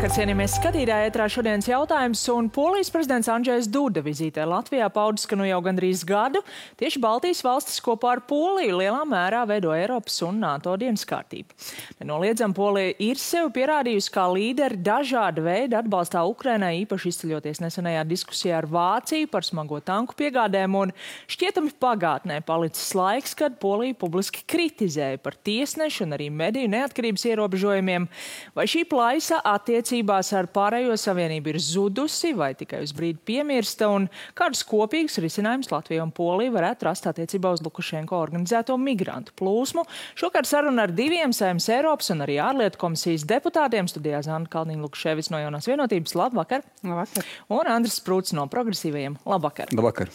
Labvakar, cienījamies skatītāji, ētrā šodienas jautājums, un Polijas prezidents Andžejs Duda vizītē Latvijā paudis, ka nu jau gandrīz gadu tieši Baltijas valstis kopā ar Poliju lielā mērā veido Eiropas un NATO dienas kārtību. Nenoliedzam, Polija ir sevi pierādījusi kā līderi dažāda veida atbalstā Ukrainai, īpaši izceļoties nesenajā diskusijā ar Vāciju par smago tanku piegādēm, un šķietami pagātnē palicis laiks, kad Polija publiski kritizēja par tiesnešu un arī mediju neatkarības ierobežojumiem. Vai šī plaisa attiecībās ar pārējo savienību ir zudusi vai tikai uz brīdi piemirsta, un kādus kopīgus risinājumus Latvija un Polija varētu rast attiecībā uz Lukašenko organizēto migrantu plūsmu? Šokar saruna ar diviem Saeimas Eiropas un arī ārlietu komisijas deputātiem. Studijā Zana Kalniņa-Lukševics no Jaunās vienotības. Labvakar! Labvakar! Un Andris Sprūts no Progresīvajiem. Labvakar! Labvakar!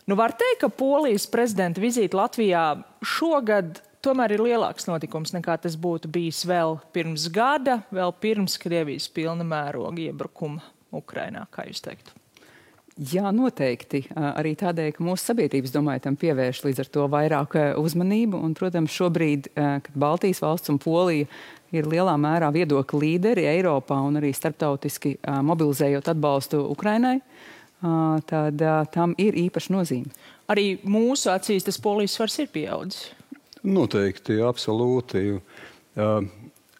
Nu, var teikt, ka Polijas prezidenta vizīte Latvijā šogad tomēr ir lielāks notikums nekā tas būtu bijis vēl pirms gada, vēl pirms Krievijas pilna mēroga iebrukuma Ukrainā, kā jūs teiktu? Jā, noteikti. Arī tādēļ, ka mūsu sabiedrības, domāju, tam pievērš līdz ar to vairāk uzmanību. Un, protams, šobrīd, kad Baltijas valsts un Polija ir lielā mērā viedokļu līderi Eiropā un arī starptautiski mobilizējot atbalstu Ukrainai, tad tam ir īpaša nozīme. Arī mūsu acīs tas Polijas svars ir pieaudzis. Noteikti, absolūti.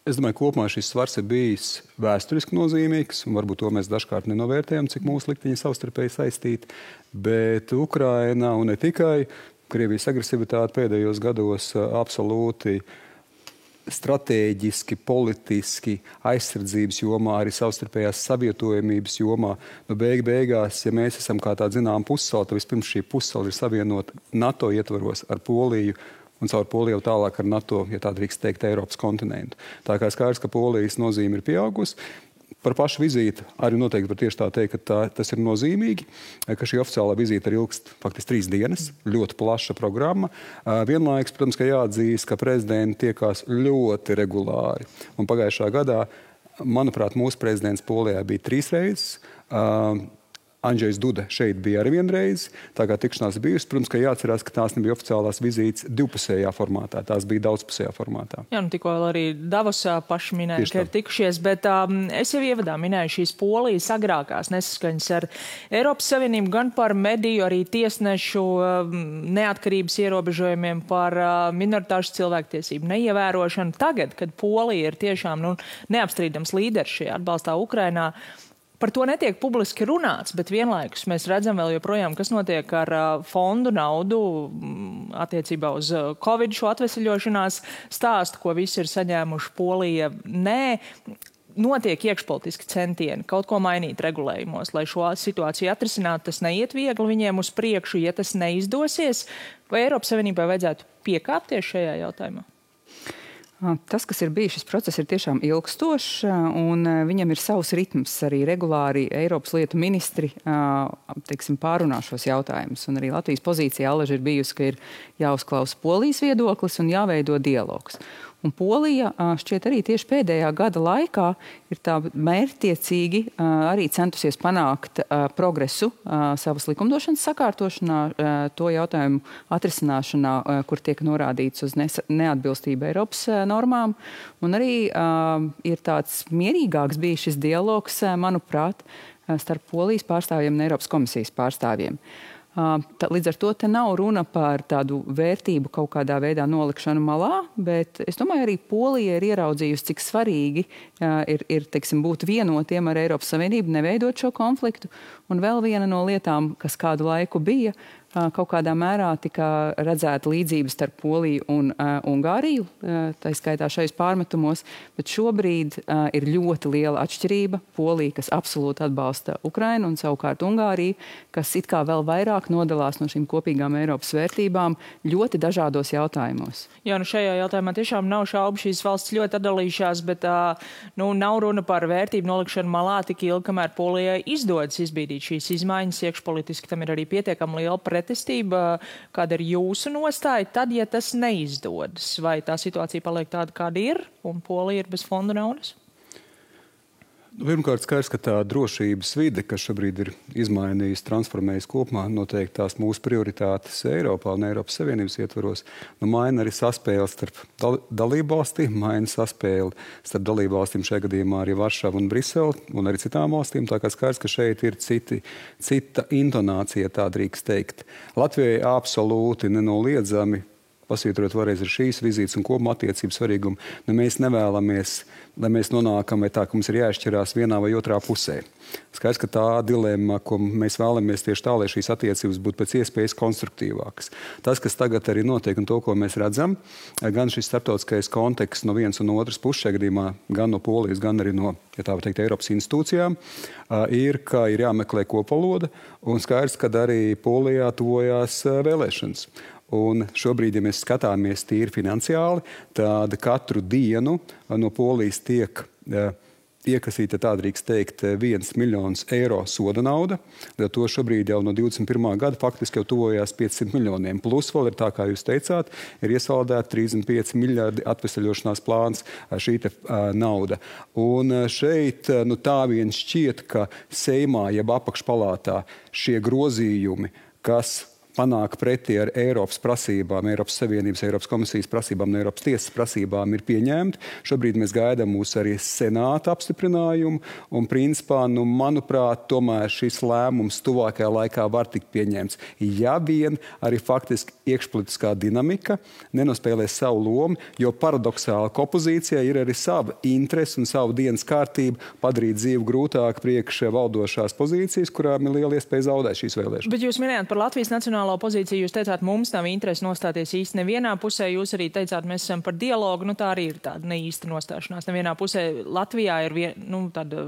Es domāju, kopumā šis svars ir bijis vēsturiski nozīmīgs, un varbūt to mēs dažkārt nenovērtējam, cik mūsu likteņi savstarpēji saistīti. Bet Ukraina un ne tikai Krievijas agresivitāte pēdējos gados absolūti stratēģiski, politiski, aizsardzības jomā, arī savstarpējās savietojamības jomā. Beigās, ja mēs esam kā tāda zinām pussala, tad vispirms šī pussala ir savienota NATO ietvaros ar Poliju, un caur Poliju tālāk ar NATO, ja tā drīkst teikt, Eiropas kontinentu. Tā kā skaidrs, ka Polijas nozīme ir pieaugusi. Par pašu vizīti arī noteikti var tieši tā teikt, ka tas ir nozīmīgi, ka šī oficiālā vizīte ir ilgst faktiski 3 dienas, ļoti plaša programma. Vienlaikus, protams, ka jāatzīst, ka prezidenti tiekās ļoti regulāri. Un pagājušā gadā, manuprāt, mūsu prezidents Polijā bija 3 reizes. Andžejs Duda šeit bija arī vienreiz, tā kā tikšanās bijusi. Protams, ka jāatcerās, ka tās nebija oficiālās vizītes divpusējā formātā, tās bija daudzpusējā formātā. Jā, nu tikko arī Davosā paši minēja, ka ir tikušies, bet es jau ievadā minēju šīs Polijas agrākās nesaskaņas ar Eiropas Savienību gan par mediju, arī tiesnešu neatkarības ierobežojumiem, par minoritāšu cilvēktiesību neievērošanu. Tagad, kad Polija ir tiešām neapstrīdams līderis šajā atbalstā Ukrainā, par to netiek publiski runāts, bet vienlaikus mēs redzam vēl joprojām, kas notiek ar fondu naudu attiecībā uz Covid šo atveseļošanās stāstu, ko visi ir saņēmuši. Polija nē. Notiek iekšpolitiski centieni kaut ko mainīt regulējumos, lai šo situāciju atrisinātu. Tas neiet viegli viņiem uz priekšu, ja tas neizdosies. Vai Eiropas Savienībai vajadzētu piekāpties šajā jautājumā? Tas, kas ir bijis, šis process ir tiešām ilgstošs, un viņam ir savs ritms. Arī regulāri Eiropas lietu ministri pārunā šos jautājumus. Un arī Latvijas pozīcija alaži ir bijusi, ka ir jāuzklausa Polijas viedoklis un jāveido dialogs. Un Polija šķiet arī tieši pēdējā gada laikā ir tā mērķtiecīgi arī centusies panākt progresu savas likumdošanas sakārtošanā, to jautājumu atrisināšanā, kur tiek norādīts uz neatbilstību Eiropas normām. Un arī ir tāds mierīgāks bijis šis dialogs, manuprāt, starp Polijas pārstāvjiem un Eiropas komisijas pārstāvjiem. Līdz ar to te nav runa par tādu vērtību kaut kādā veidā nolikšanu malā, bet es domāju, arī Polija ir ieraudzījusi, cik svarīgi ir būt vienotiem ar Eiropas Savienību, neveidot šo konfliktu. Un vēl viena no lietām, kas kādu laiku bija, kaut kādā mērā tika redzēta līdzības starp Poliju un Ungāriju, tā skaitā šajos pārmetumos, bet šobrīd ir ļoti liela atšķirība. Polija, kas absolūti atbalsta Ukrainu, un savukārt Ungārija, kas it kā vēl vairāk nodalās no šīm kopīgām Eiropas vērtībām ļoti dažādos jautājumos. Jā, šajā jautājumā tiešām nav šaubu, šīs valsts ļoti atdalījušās, bet nav runa par vērtību nolikšanu malā tik ilgi, kamēr Polijai izdodas izbīdīt šīs izmaiņas iekšpolitiski. Tam ir arī pietiekami liela pretestība. Kāda ir jūsu nostāja tad, ja tas neizdodas? Vai tā situācija paliek tāda, kāda ir, un Polija ir bez fondu naudas? Pirmkārt, skaidrs, ka tā drošības vide, kas šobrīd ir izmainījusi, transformējusi kopumā, noteikti tās mūsu prioritātes Eiropā un Eiropas Savienības ietvaros, maina arī saspēli starp dalībvalstīm, maina saspēli starp dalībvalstīm šajā gadījumā arī Varšavu un Briseli un arī citām valstīm. Tā kā skaidrs, ka šeit ir cita intonācija, tā drīkst teikt. Latvijai absolūti nenoliedzami, pasvītrot vēlreiz ar šīs vizītes un kopumā attiecību svarīgumu, mēs nevēlamies, lai mēs nonākam vai tā, ka mums ir jāšķirās vienā vai otrā pusē. Skaidrs, ka tā dilemma, ko mēs vēlamies tieši tā, lai šīs attiecības būtu pēc iespējas konstruktīvākas. Tas, kas tagad arī notiek un to, ko mēs redzam, gan šis starptautiskais konteksts no vienas un otras puses, šajā gadījumā gan no Polijas, gan arī no, ja tā var teikt, Eiropas institūcijām, ir, ka ir jāmeklē kopvaloda, un skaidrs, ka arī Polijā tuvojās vēlēšanas. Un šobrīd, ja mēs skatāmies tīri finansiāli, tad katru dienu no Polijas tiek iekasīta, tā drīkst teikt, 1 miljons eiro soda nauda. To šobrīd jau no 21. gada faktiski jau tuvojās 500 miljoniem. Plus vēl ir tā, kā jūs teicāt, ir iesaldēta 35 miljardi atvesaļošanās plāns šī nauda. Un šeit tā vien šķiet, ka Seimā jeb apakšpalātā šie grozījumi, kas panāk pretī ar Eiropas prasībām, Eiropas Savienības, Eiropas komisijas prasībām un Eiropas tiesas prasībām ir pieņemti. Šobrīd mēs gaidām mūsu arī senāta apstiprinājumu un principā, manuprāt, tomēr šis lēmums tuvākajā laikā var tikt pieņemts. Ja vien arī faktiski iekšpolitiskā dinamika nenospēlēs savu lomu, jo paradoxāli ka opozīcijai ir arī sava interese un savu dienas kārtību padarīt dzīvi grūtāk priekš valdošās pozīcijas, kurām ir liela iespēja zaudēt šīs vēlēšanas. Bet jūs minējāt par Latvijas nacionālo pozīciju, jūs teicāt, mums nav interesi nostāties īsti nevienā pusē, jūs arī teicāt, mēs esam par dialogu, tā arī ir tāda neīsta nostāšanās. Nevienā pusē Latvijā ir tāda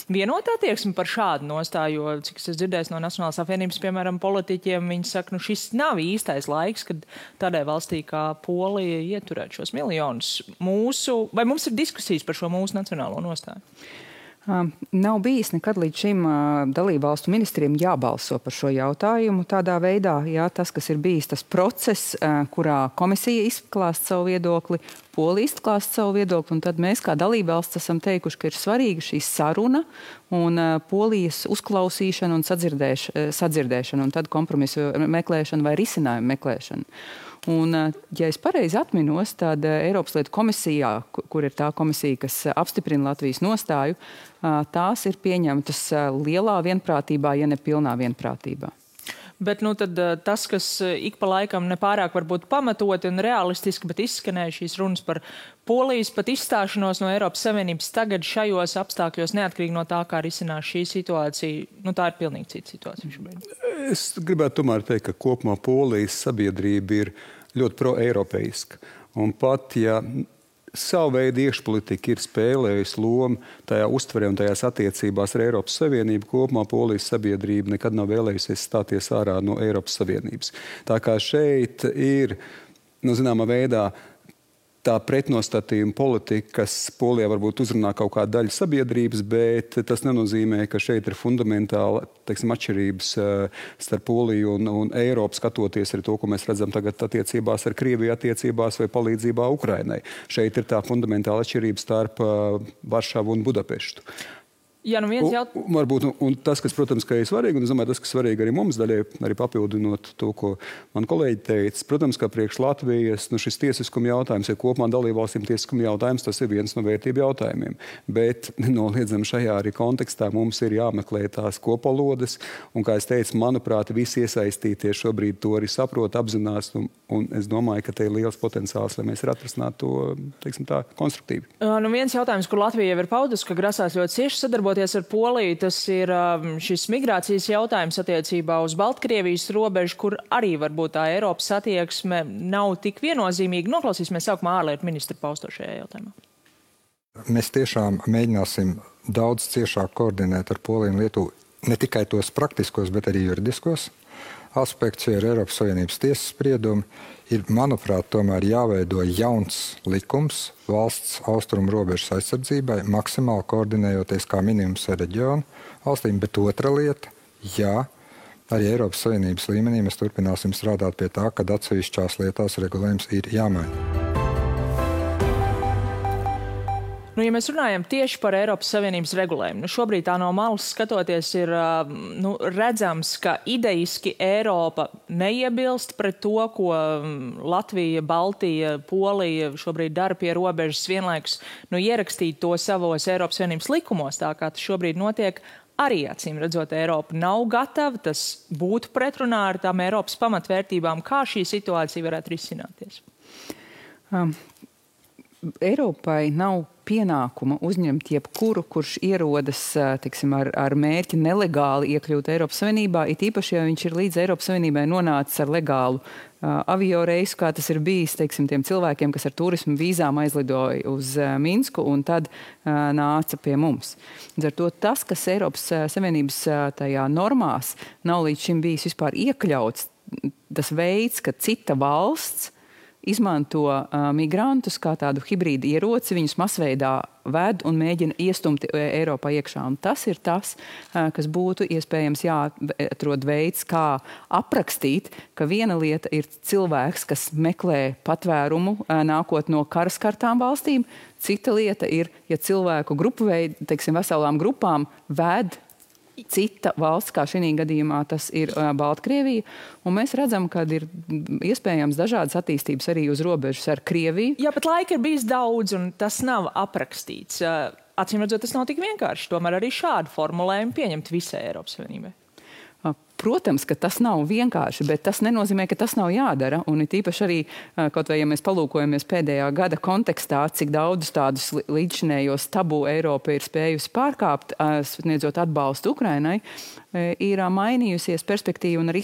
vienotā attieksme par šādu nostāju, jo, cik es dzirdēju no Nacionālās apvienības, piemēram, politiķiem, viņi saka, šis nav īstais laiks, kad tādai valstī kā Polija ieturēt šos miljonus vai mums ir diskusijas par šo mūsu nacionālo nostāju? Nav bijis nekad līdz šim dalībvalstu ministriem jābalso par šo jautājumu. Tādā veidā, tas, kas ir bijis tas process, kurā komisija izklāst savu viedokli, Polija izklāst savu viedokli, un tad mēs kā dalībvalsts esam teikuši, ka ir svarīga šī saruna un Polijas uzklausīšana un sadzirdēšana, un tad kompromisu meklēšana vai risinājumu meklēšana. Un, ja es pareizi atminos, tad Eiropas lietu komisijā, kur ir tā komisija, kas apstiprina Latvijas nostāju, tās ir pieņemtas lielā vienprātībā, ja ne pilnā vienprātībā. Bet tad tas, kas ik pa laikam nepārāk varbūt pamatoti un realistiski, bet izskanēja šīs runas par Polijas pat izstāšanos no Eiropas Savienības tagad šajos apstākļos, neatkarīgi no tā, kā risinās šī situācija, tā ir pilnīgi cita situācija šobrīd. Es gribētu tomēr teikt, ka kopumā Polijas sabiedrība ir ļoti pro-eiropeiska. Un pat, ja savu veidu iekšpolitika ir spēlējusi lomu tajā uztverē un tajās attiecībās ar Eiropas Savienību, kopumā Polijas sabiedrība nekad nav vēlējusies stāties ārā no Eiropas Savienības. Tā kā šeit ir, zināmā veidā, tā pretnostatījuma politika, kas Polijā varbūt uzrunā kaut kādu daļu sabiedrības, bet tas nenozīmē, ka šeit ir fundamentāli, atšķirības starp Poliju un Eiropu, skatoties arī to, ko mēs redzam tagad attiecībās ar Krieviju attiecībās vai palīdzībā Ukrainai. Šeit ir tā fundamentāla atšķirība starp Varšavu un Budapeštu. Jā, Varbūt, un tas, kas, protams, ka ir svarīgi, un es domāju, tas, kas svarīgi arī mums daļai, arī papildinot to, ko man kolēģi teica, protams, ka priekš Latvijas šis tiesiskuma jautājums, ja kopumā dalībvalstīm tiesiskuma jautājums, tas ir viens no vērtību jautājumiem. Bet nenoliedzami šajā arī kontekstā mums ir jāmeklē tās kopvalodas, un, kā es teicu, manuprāt, visi iesaistītie šobrīd to arī saprot, apzinās, un es domāju, ka te ir liels potenciāls, lai mēs atrisinātu to, teiksim tā, konstruktīvi. Viens jautājums, kur Latvija jau ir paudus, ka grasās ļoti cieši sadarboties ar Poliju, tas ir šis migrācijas jautājums attiecībā uz Baltkrievijas robežu, kur arī varbūt tā Eiropas attieksme nav tik viennozīmīga. Noklausīsimies sākumā ārlietu ministru pausto šajā jautājumā. Mēs tiešām mēģināsim daudz ciešāk koordinēt ar Poliju un Lietuvu ne tikai tos praktiskos, bet arī juridiskos aspektus, jo ir Eiropas Savienības tiesas spriedumi. Ir, manuprāt, tomēr jāveido jauns likums valsts austrumu robežas aizsardzībai, maksimāli koordinējoties kā minimums ar reģionu valstīm, bet otra lieta, arī Eiropas Savienības līmenī mēs turpināsim strādāt pie tā, kad atsevišķās lietās regulējums ir jāmaina. Ja mēs runājam tieši par Eiropas Savienības regulējumu, šobrīd tā no malas skatoties ir redzams, ka ideiski Eiropa neiebilst pret to, ko Latvija, Baltija, Polija šobrīd dara pie robežas, vienlaikus ierakstīt to savos Eiropas Savienības likumos, tā kā tas šobrīd notiek. Arī, acīm redzot, Eiropa nav gatava, tas būtu pretrunā ar tām Eiropas pamatvērtībām. Kā šī situācija varētu risināties? Eiropai nav pienākuma uzņemt jebkuru, kurš ierodas, teiksim, ar mērķi nelegāli iekļūt Eiropas Savienībā, it īpaši, ja viņš ir līdz Eiropas Savienībai nonācis ar legālu avio reisu, kā tas ir bijis, teiksim, tiem cilvēkiem, kas ar turismu vīzām aizlidoja uz Minsku un tad nāca pie mums. Ar to tas, kas Eiropas Savienības tajā normās nav līdz šim bijis vispār iekļauts, tas veids, ka cita valsts izmanto migrantus kā tādu hibrīdu ieroci, viņus masveidā ved un mēģina iestumt Eiropā iekšā. Un tas ir tas, kas būtu iespējams jāatrod veids, kā aprakstīt, ka viena lieta ir cilvēks, kas meklē patvērumu, nākot no karaskartām valstīm. Cita lieta ir, ja cilvēku grupu veidu, teiksim, veselām grupām ved cita valsts, kā šī gadījumā tas ir Baltkrievija. Un mēs redzam, ka ir iespējams dažādas attīstības arī uz robežas ar Krieviju. Jā, bet laika ir bijis daudz, un tas nav aprakstīts. Acīm redzot, tas nav tik vienkārši. Tomēr arī šādu formulējumu pieņemt visai Eiropas Savienībai. Protams, ka tas nav vienkārši, bet tas nenozīmē, ka tas nav jādara. Un it īpaši arī, kaut vai ja mēs palūkojamies pēdējā gada kontekstā, cik daudz tādus līdzšinējos tabu Eiropa ir spējusi pārkāpt, sniedzot atbalstu Ukrainai, ir mainījusies perspektīva un arī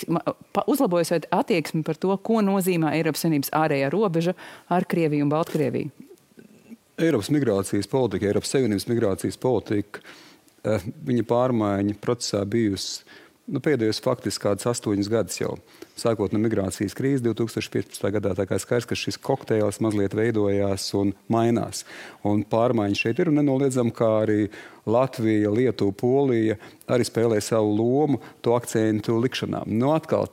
uzlabojusies attieksmi par to, ko nozīmē Eiropas Savienības ārējā robeža ar Krieviju un Baltkrieviju. Eiropas migrācijas politika, Eiropas Savienības migrācijas politika, viņa pārmaiņa procesā bijusi pēdējos faktiski kādus 8 gadus jau. Sākot no migrācijas krīzes 2015. gadā, tā kā skaidrs, ka šis kokteils mazliet veidojās un mainās. Un pārmaiņas šeit ir un nenoliedzam, kā arī Latvija, Lietuva, Polija arī spēlē savu lomu to akcentu likšanā. Atkal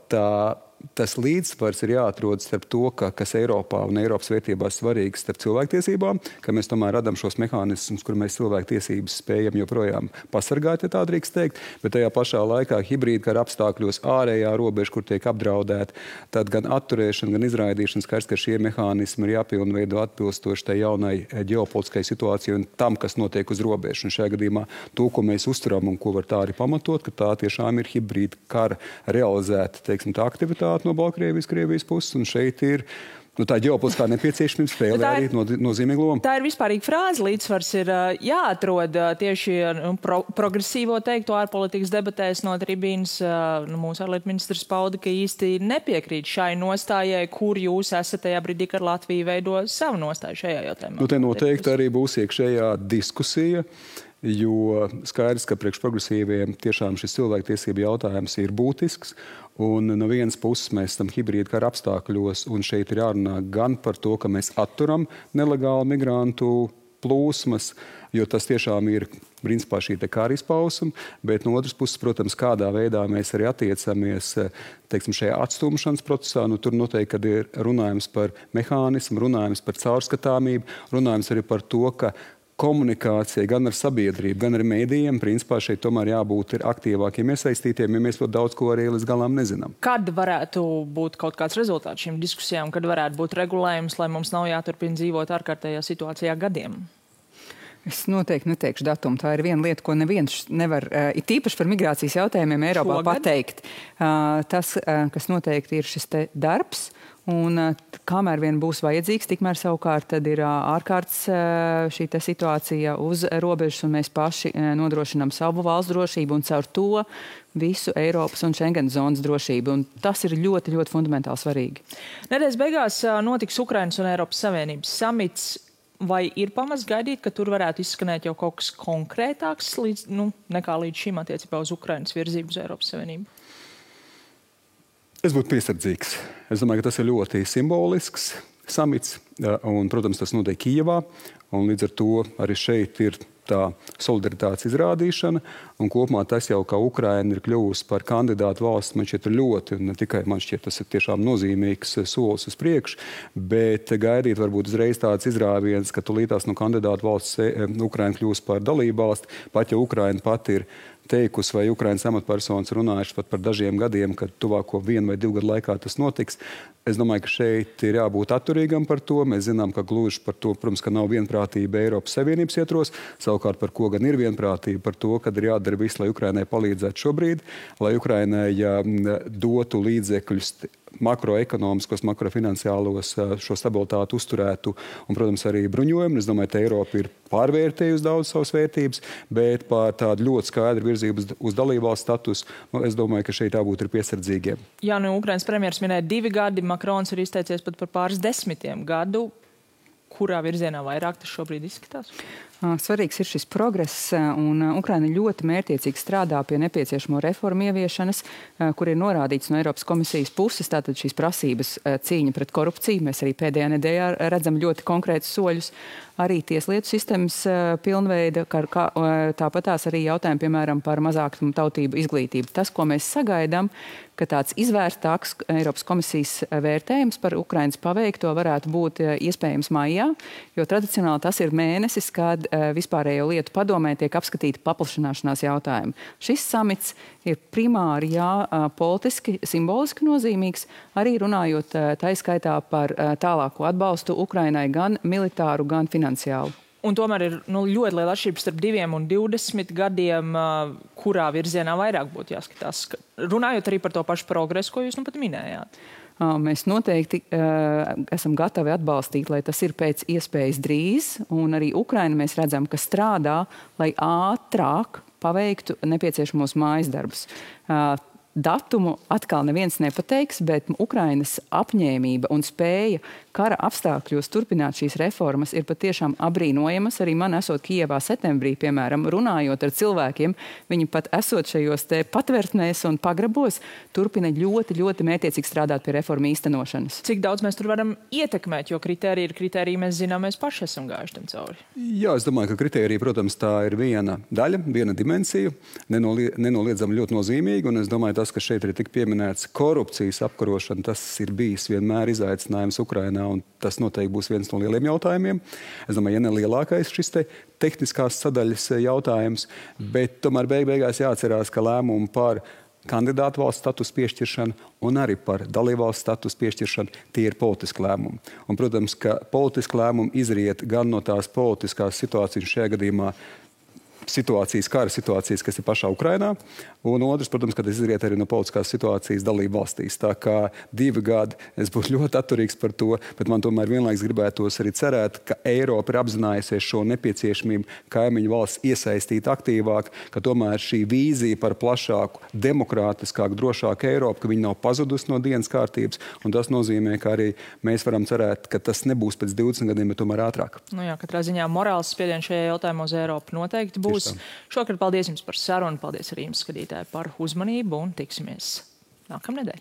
tas līdzsvars ir jāatrod starp to, kas Eiropā un Eiropas vērtībās svarīgs starp cilvēktiesībām, ka mēs tomēr radam šos mehānismus, kur mēs cilvēktiesības spējam joprojām pasargāt, ja tā drīkst teikt, bet tajā pašā laikā hibrīdkara apstākļos ārējā robeža, kur tiek apdraudēta, tad gan atturēšana, gan izraidīšana, skaidrs, ka šie mehānismi ir jāpilnveido atbilstoši tai jaunai ģeopolitiskai situācijai un tam, kas notiek uz robežas. Un šajā gadījumā to, ko mēs uzturam un ko var tā arī pamatot, ka tā tiešām ir hibrīdkara realizēta, teiksim, tā aktivitāte no Baltkrievijas, Krievijas puses, un šeit ir tā ģeopolitiskā nepieciešamība spēlē arī nozīmīgu lomu. Tā ir vispārīga frāze. Līdzsvars ir jāatrod tieši progresīvo teikto ārpolitikas debatēs no tribīnas. Mūsu ārlietu ministrs pauda, ka īsti nepiekrīt šai nostājai, kur jūs esat tajā brīdī, kad Latvija veido savu nostāju šajā jautājumā. Te noteikti arī būs iekšējā diskusija, jo skaidrs, ka priekš progresīviem tiešām šis cilvēktiesību jautājums ir būtisks. Un no vienas puses mēs esam hibrīdkara apstākļos, un šeit ir jārunā gan par to, ka mēs atturam nelegālu migrantu plūsmas, jo tas tiešām ir principā šī kara izpausme, bet no otras puses, protams, kādā veidā mēs arī attiecamies, teiksim, šajā atstumšanas procesā. Tur noteikti, kad ir runājums par mehānismu, runājums par caurskatāmību, runājums arī par to, ka komunikācija gan ar sabiedrību, gan ar mēdījiem, principā šeit tomēr jābūt aktīvākiem iesaistītiem, ja mēs ļoti daudz ko arī līdz galam nezinām. Kad varētu būt kaut kāds rezultāts šīm diskusijām, kad varētu būt regulējums, lai mums nav jāturpina dzīvot ārkārtējā situācijā gadiem? Es noteikti neteikšu datumu. Tā ir viena lieta, ko neviens nevar, it īpaši par migrācijas jautājumiem Eiropā pateikt. Tas, kas noteikti ir šis te darbs, un kamēr vien būs vajadzīgs, tikmēr savukārt tad ir ārkārtas šī te situācija uz robežas, un mēs paši nodrošinām savu valsts drošību un caur to visu Eiropas un Schengen zonas drošību. Un tas ir ļoti, ļoti fundamentāli svarīgi. Nedēļas beigās notiks Ukrainas un Eiropas Savienības samits. Vai ir pamats gaidīt, ka tur varētu izskanēt jau kaut kas konkrētāks nekā līdz šim attiecībā uz Ukrainas virzību uz Eiropas Savienību? Es būtu piesardzīgs. Es domāju, ka tas ir ļoti simbolisks samits, un, protams, tas notiek Kijevā, un līdz ar to arī šeit ir tā solidaritātes izrādīšana, un kopumā tas jau, kā Ukraina ir kļuvusi par kandidātu valsts, man šķiet ļoti, un ne tikai man šķiet, tas ir tiešām nozīmīgs solis uz priekšu, bet gaidīt varbūt uzreiz tāds izrāviens, ka tūlītās no kandidātu valsts Ukraina kļūs par dalību valsti, pat ja Ukraina pat ir teikusi, vai Ukrainas amatpersonas runājuši pat par dažiem gadiem, kad tuvāko 1 vai 2 gadu laikā tas notiks. Es domāju, ka šeit ir jābūt atturīgam par to. Mēs zinām, ka gluži par to, protams, ka nav vienprātība Eiropas Savienības ietvaros. Savukārt par ko gan ir vienprātība? Par to, kad ir jādara viss, lai Ukrainai palīdzētu šobrīd, lai Ukrainai dotu līdzekļus makroekonomiskos, makrofinanciālos šo stabilitāti uzturētu un, protams, arī bruņojumu. Es domāju, ka Eiropa ir pārvērtējusi daudz savas vērtības, bet par tādu ļoti skaidru virzību uz dalībvalsts statusu, es domāju, ka šeit jābūt ir piesardzīgiem. Jā, Ukrainas premjers minēja 2 gadi, Makrons ir izteicies pat par pāris 10 gadu. Kurā virzienā vairāk tas šobrīd izskatās? Svarīgs ir šis progress, un Ukraina ļoti mērķiecīgi strādā pie nepieciešamo reformu ieviešanas, kur ir norādīts no Eiropas komisijas puses, tātad šīs prasības cīņa pret korupciju. Mēs arī pēdējā nedēļā redzam ļoti konkrētus soļus. Arī tieslietu sistēmas pilnveida, tāpatās arī jautājumi, piemēram, par mazākumu tautību izglītību. Tas, ko mēs sagaidām, ka tāds izvērstāks Eiropas komisijas vērtējums par Ukrainas paveikto varētu būt iespējams maijā, jo tradicionāli tas ir mēnesis, kad vispārējo lietu padomē tiek apskatīti paplašanāšanās jautājumi. Šis samits ir primāri, politiski, simboliski nozīmīgs, arī runājot taiskaitā par tālāko atbalstu Ukrainai gan militāru, gan finansiālu. Un tomēr ir ļoti liela atšķirība starp 2 un 20 gadiem, kurā virzienā vairāk būtu jāskatās. Runājot arī par to pašu progresu, ko jūs pat minējāt. Mēs noteikti esam gatavi atbalstīt, lai tas ir pēc iespējas drīz, un arī Ukraina mēs redzam, ka strādā, lai ātrāk paveiktu nepieciešamos mājas darbus. Datumu atkal neviens nepateiks, bet Ukrainas apņēmība un spēja kara apstākļos turpināt šīs reformas ir patiešām abrīnojamas. Arī man esot Kijevā septembrī, piemēram, runājot ar cilvēkiem, viņi pat esot šajos te patvērtnēs un pagrabos, turpina ļoti, ļoti mērķiecīgi strādāt pie reformu īstenošanas. Cik daudz mēs tur varam ietekmēt, jo kritērija ir kritērija, mēs zinām, mēs paši esam gājuši tam cauri. Jā, es domāju, ka kritērija, protams, tā ir viena daļa, viena dimensija, nenoliedzami ļoti nozīmīga, un es domāju, tas, ka šeit ir tik pieminēts korupcijas apkarošana, tas ir bijis vienmēr izaicinājums Ukrainā, un tas noteikti būs viens no lieliem jautājumiem. Es domāju, ja ne lielākais šis te tehniskās sadaļas jautājums, bet tomēr beigās jāatcerās, ka lēmumu par kandidātu valsts status piešķiršanu un arī par dalībvalsts status piešķiršanu tie ir politiski lēmumi. Un, protams, ka politiski lēmumi izriet gan no tās politiskās situācijas, šajā gadījumā kara situācijas, kas ir pašā Ukrainā, un otrs, protams, ka tas izriet arī no politiskās situācijas dalību valstīs. Tā kā 2 gadi, es būtu ļoti atturīgs par to, bet man tomēr vienlaiks gribētos arī cerēt, ka Eiropa ir apzinājusies šo nepieciešamību kaimiņu valsts iesaistīt aktīvāk, ka tomēr šī vīzija par plašāku, demokrātiskāku, drošāku Eiropu, ka viņi nav pazudusi no dienas kārtības, un tas nozīmē, ka arī mēs varam cerēt, ka tas nebūs pēc 20 gadiem, bet tomēr ātrāk. Jā, katrā ziņā morāls spiediens šajā jautājumā uz Eiropu noteikti būs. Šokar paldies jums par sarunu, paldies arī jums, skatītāji, par uzmanību un tiksimies nākamnedēļ.